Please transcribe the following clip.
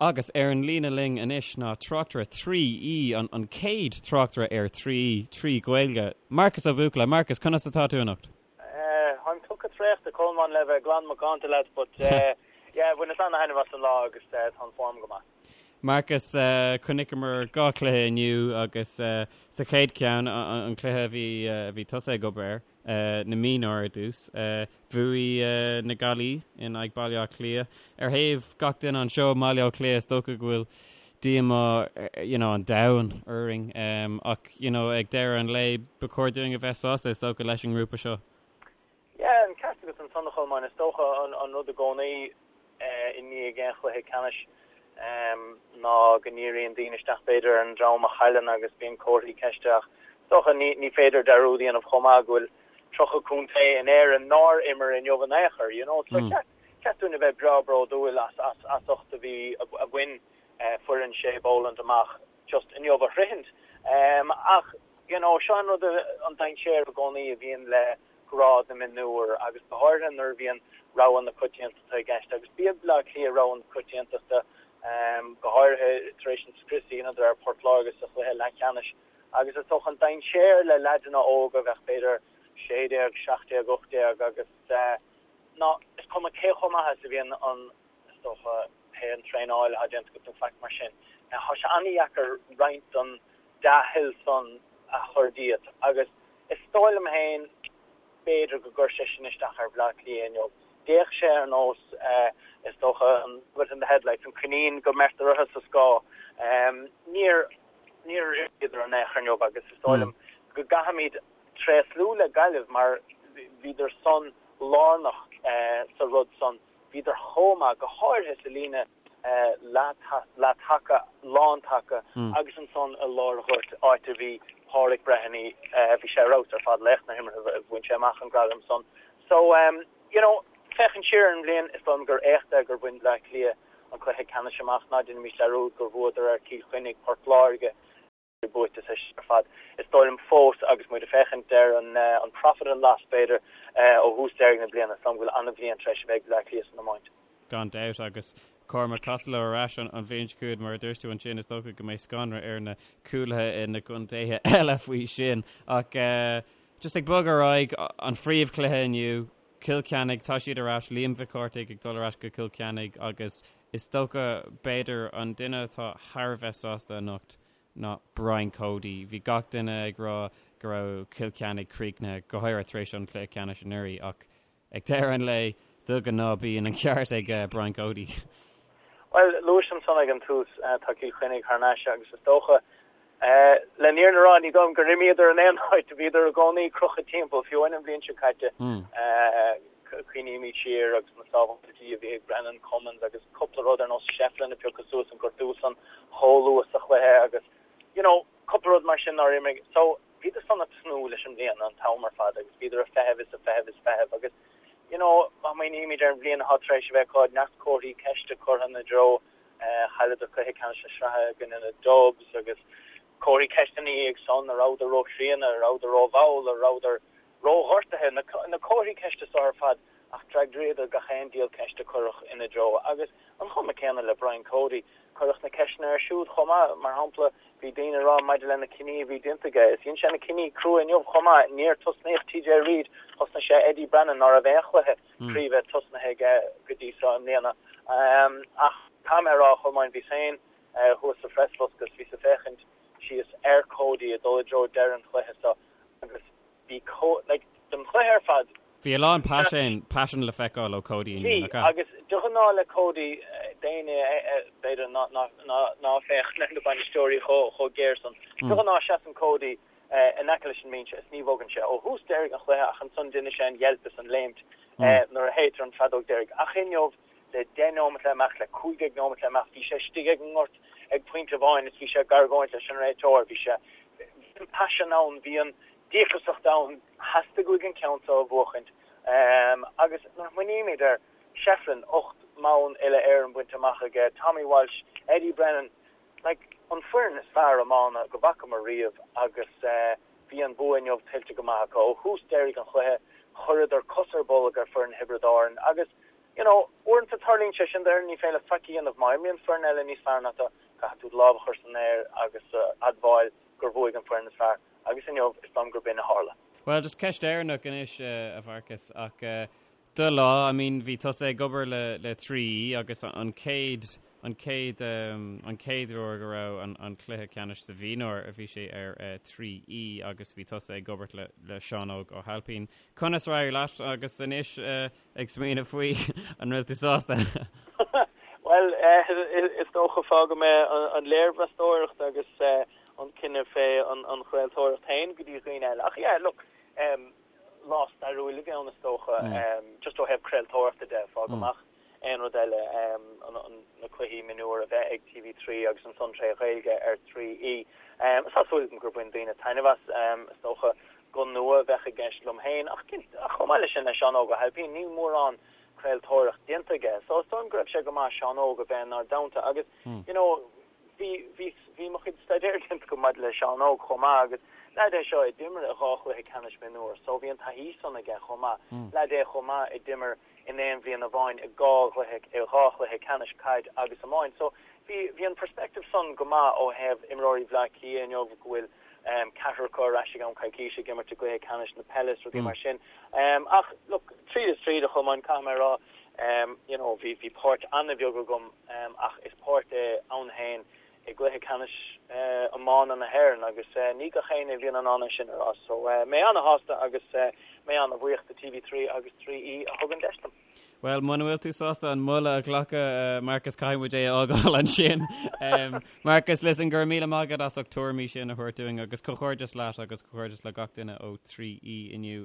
Agus ar an líne linn anois ná tráchtaire 3E, an chéad tráchtaire ar 3E 3 Ghaeilge, Marcus Ó Buachalla. Marcus, conas atá tú anocht? Táim tugtha traochta, Colmán, le bheith glan macánta leat, but yeah, bhaineas ana-thaitneamh as an lá agus tá an form go maith. Marcus, chonaiceamar 2 chluiche inniu agus sa chéad cheann, an cluiche a bhí a bhí tusa ag obair air, na mionúir ar dtús, bhuaigh na Gaillimhigh in aghaidh Baile Átha Cliath. Ar thaobh gach duine anseo i mBaile Átha Cliath, is dócha go bhfuil díomá you know, an domhain orainn ach you know, ag deireadh an lae ba chóir dúinn a bheith sásta is dócha leis an ngrúpa seo. Yeah, an ceart agat ansan a Cholmáin, is dócha an rud i gcónaí i ndiaidh aon chluiche ceannais ná go ndíríonn daoine isteach b'fhéidir ar an dream a chailleann agus bíonn comharthaí ceiste ach is dócha ní féidir dearúd a dhéanamh chomh maith go bhfuil 30 contae in Éirinn nár imir inniu in aon chor, you know. So cheart dúinn a bheith breá bródúil as as ucht a bhí a bhain foireann Shay Boland amach just inniu a shroichint. Ach you know, seo an rud an dainséar i gcónaí a bhíonn le grád na mionúr agus go háirithe nuair a bhíonn rogha na coitiantachta i gceist agus b'iad Baile Átha Cliath rogha na coitiantachta go háirithe tar éis an scrios a dheineadar ar Port Láirge sa chluiche leathcheannais agus is dócha an dainséar le leaideanna óga a bheadh b'fhéidir 16, 17, 18 agus ná is cuma cé chomh maith is a bhíonn an is dócha pé an traenáil atá déanta agat nó faic mar sin tá sé an-dheacair roinnt den dea-thoil san a chur díot agus is dóigh liom féin b'fhéidir go gcuir sé sin isteach ar Bhleá Cliath inniu. D'fhéach sé ar nós, is dócha, an rabbit in the headlights, an coinín go mbeirtear orthu sa scáth. Níor, níor imríodar in aon chor inniu agus is dóigh liom go gcaithfimid tréaslú le Gaillimh mar bhíodar san lárnach sa rud san. Bhíodar chomh maith, go háirithe sa líne leath-taca, lán-taca agus ansan i lár an ghoirt, áit a bhí Páraic Breheny, bhí sé ar fheabhas ar fad, laoch na himeartha, bhain sé amach an gradam san. So, you know, féachaint siar ar an bhliain, is dóigh liom gur éacht é gur bhain Bleá Cliath an cluiche ceannais amach, ná déanaimis dearúd gur bhuadar ar Cill Chainnigh, Port Láirge, buaite sa ar fad. Is dóigh liom fós, agus muid ag féachaint ar an profit and loss, b'fhéidir, ó thús deiridh na bliana, is dóigh liom go bhfuil an-bhliain tar éis a bheith ag Bleá Cliath san iomáint. Gan dabht, agus Cormac Costello ar ais an bhliain seo chugainn, mar a dúirt tú ansin, is dócha go mbeidh scanradh ar na cúlaithe i na gcontaetha eile faoi sin. Ach just ag bogadh ar aghaidh, an phríomhchluiche inniu, Cill Chainnigh, tá siad ar ais, Liam Mhic Cárthaigh ag dul ar ais go Cill Chainnigh agus is dócha, b'fhéidir, an duine atá thar a bheith sásta anocht ná Brian Cody. Bhí gach duine ag rá go raibh Cill Chainnigh críochnaithe, go háirithe tar éis an chluiche ceannais anuraidh, ach ag deireadh an lae, de ghnáth bíonn an ceart ag Brian Cody. Bhuel, luais ansan ag an tús, tá Cill Chainnigh thar n-ais agus is dócha, Le an fhírinne a rá, ní dóigh liom gur imíodar in aon áit, bhíodar i gcónaí crochta timpeall, fiú amháin an bhliain seo caite. Cuimhnímid siar agus na sábháiltí a bhí ag Brendan Cummins agus cúpla rud ar nós Shefflin a piocadh suas an gortú san chomh luath sa chluiche agus you know cúpla rud mar sin nár imigh. So bhíodar san ag tnúth leis an mbliain an t-am ar fad agus bhíodar ag feitheamh is ag feitheamh is feitheamh agus you know má smaoinímid ar an bhliain atá tar éis a bheith acu, neart comharthaí ceiste curtha ina dtreo. Chailleadar cluiche ceannais na sraithe i gcoinne na Dubs agus comharthaí ceiste ina dhiaidh san, an rabhadar róchríonna, an rabhadar rómhall, an rabhadar róghortaithe, na comharthaí ceiste so ar fad ach d'fhreagraíodar gach aon diabhal ceist a cuireadh ina dtreo. Agus an chuma céanna le Brian Cody, cuireadh na ceisteanna air siúd chomh maith. Mar shampla, bhí daoine ag rá maidir le na cinní a bhí déanta aige, is dhein sé na cinní crua inniu chomh maith. Níor tosnaíodh TJ Reid, thosnaigh sé Eddie Brannan, ná raibh aon chluiche craoibhe tosnaithe aige go dtí seo i mbliana. Ach caithfidh mé a rá, a Cholmáin, bhíos féin thuas sa phreasbhosca is bhíos ag féachaint síos ar Cody ag dul i dtreo deireadh an chluiche seo agus bhí like, don chluiche ar fad, Bhí a lán paisean, paisean le feiceáil ó Cody inniu, nach ea? Bhí, agus de ghnáth le Cody, d'éinne b'fhéidir ná féachann ar na bainisteoirí chomh géar san, de ghnáth seasann Cody in aice leis an mbinse is ní bhogann sé ó thús deiridh an chluiche ach ansan déanann sé an yelp is an léimt nuair a shéidtear an feadóg deiridh. Ach inniu, le 10 nóimeat le imeacht, le 15 nóimeat le imeacht, bhí sé istigh ag an ngort ag pointe amháin is bhí sé ag argóint leis an réiteoir. Bhí sé, bhí an paisean ann, bhí an díograsacht ann, theastaigh uaidh an ceann seo a bhuachaint. Agus nuair a smaoinímid ar Shefflin, 8 mbonn uile-Éireann bainte amach aige, Tommy Walsh, Eddie Brennan, Like, an foireann is fearr iomána go bhfacamar riamh agus bhí an bua inniu tuillte go maith acu. Ó thús deiridh an chluiche, chuireadar cos ar bolg ar foireann Thiobraid Árann agus. you know, uaireanta tarlaíonn sé sin d'fhoireann, ní féidir leat faic a dhéanamh. Má imríonn foireann eile níos fearr ná tú, caithfidh tú do lámh a chur san aer agus admháil gur bhuaigh an foireann is fearr. Agus inniu, is dóigh liom gurb in a tharla. Bhuel, just ceist dheireanach anois, a Mharcas, ach do lá, I mean, bhí tusa ag obair le le 3E agus an chéad an chéad an chéad uair go raibh an an cluiche ceannais sa mhionúr a bhí sé ar 3E agus bhí tusa ag obair le le Seán Óg Ó hAilpín. Conas ar éirigh leat agus anois ag smaoineamh faoi an bhfuil tú sásta? Bhuel, is dócha fágfaidh mé an léirmheastóireacht agus an cinneadh fé an chraoltóireacht féin go dtí dhaoine eile. Ach yeah, look, lá stairiúil a bhí ann is dócha, just ó thaobh craoltóireachta de, fág amach aon rud eile, na cluichí mionúir a bheith ag TV3 agus ansan tré Ghaeilge ar 3E. Tá súil agam gur bhain daoine taitneamh as, is dócha. Guth nua a bheadh i gceist liom féin ach chomh maith leis sin le Seán Óg Ó hAilpín, níl mórán craoltóireacht déanta aige so is dóigh liom go raibh sé go maith Seán Óg a bheith inár dteannta agus you know bhí bhí bhí mo chuid staidéir déanta agam maidir le Seán Óg chomh maith agus leaid é seo a d'imir i dhá chluiche ceannais mionúr so bhí an taithí san aige chomh maith. Leaid é chomh maith a d'imir in aon bhliain amháin i dhá chluiche i dhá chluiche ceannais caid agus iomáint so bhí bhí an perspective san go maith ó thaobh imreoirí Bhleá Cliath inniu go bhfuil ceathrar acu ar ais i gceann coicíse ag imirt i gcluiche ceannais na peile is rudaí mar sin. Ach look, tríd is tríd, a Cholmáin, caithfidh mé a rá, you know, bhí, bhí páirt an-bheag agam ach is páirt é ann féin i gcluiche ceannais iomána na hÉireann agus ní gach éinne a bhíonn in ann é sin a rá. So mé an-shásta agus mé an-bhuíoch do TV3 agus 3E a thug an deis dom. Bhuel, muna bhfuil tú sásta an moladh a ghlacadh, Marcus, caithfidh muid é a fhágáil ansin. Marcus, listen, go raibh míle maith agat as ucht tuairimí sin a thabhairt dúinn agus comhghairdeas leat agus comhghairdeas le gach duine ó 3E inniu.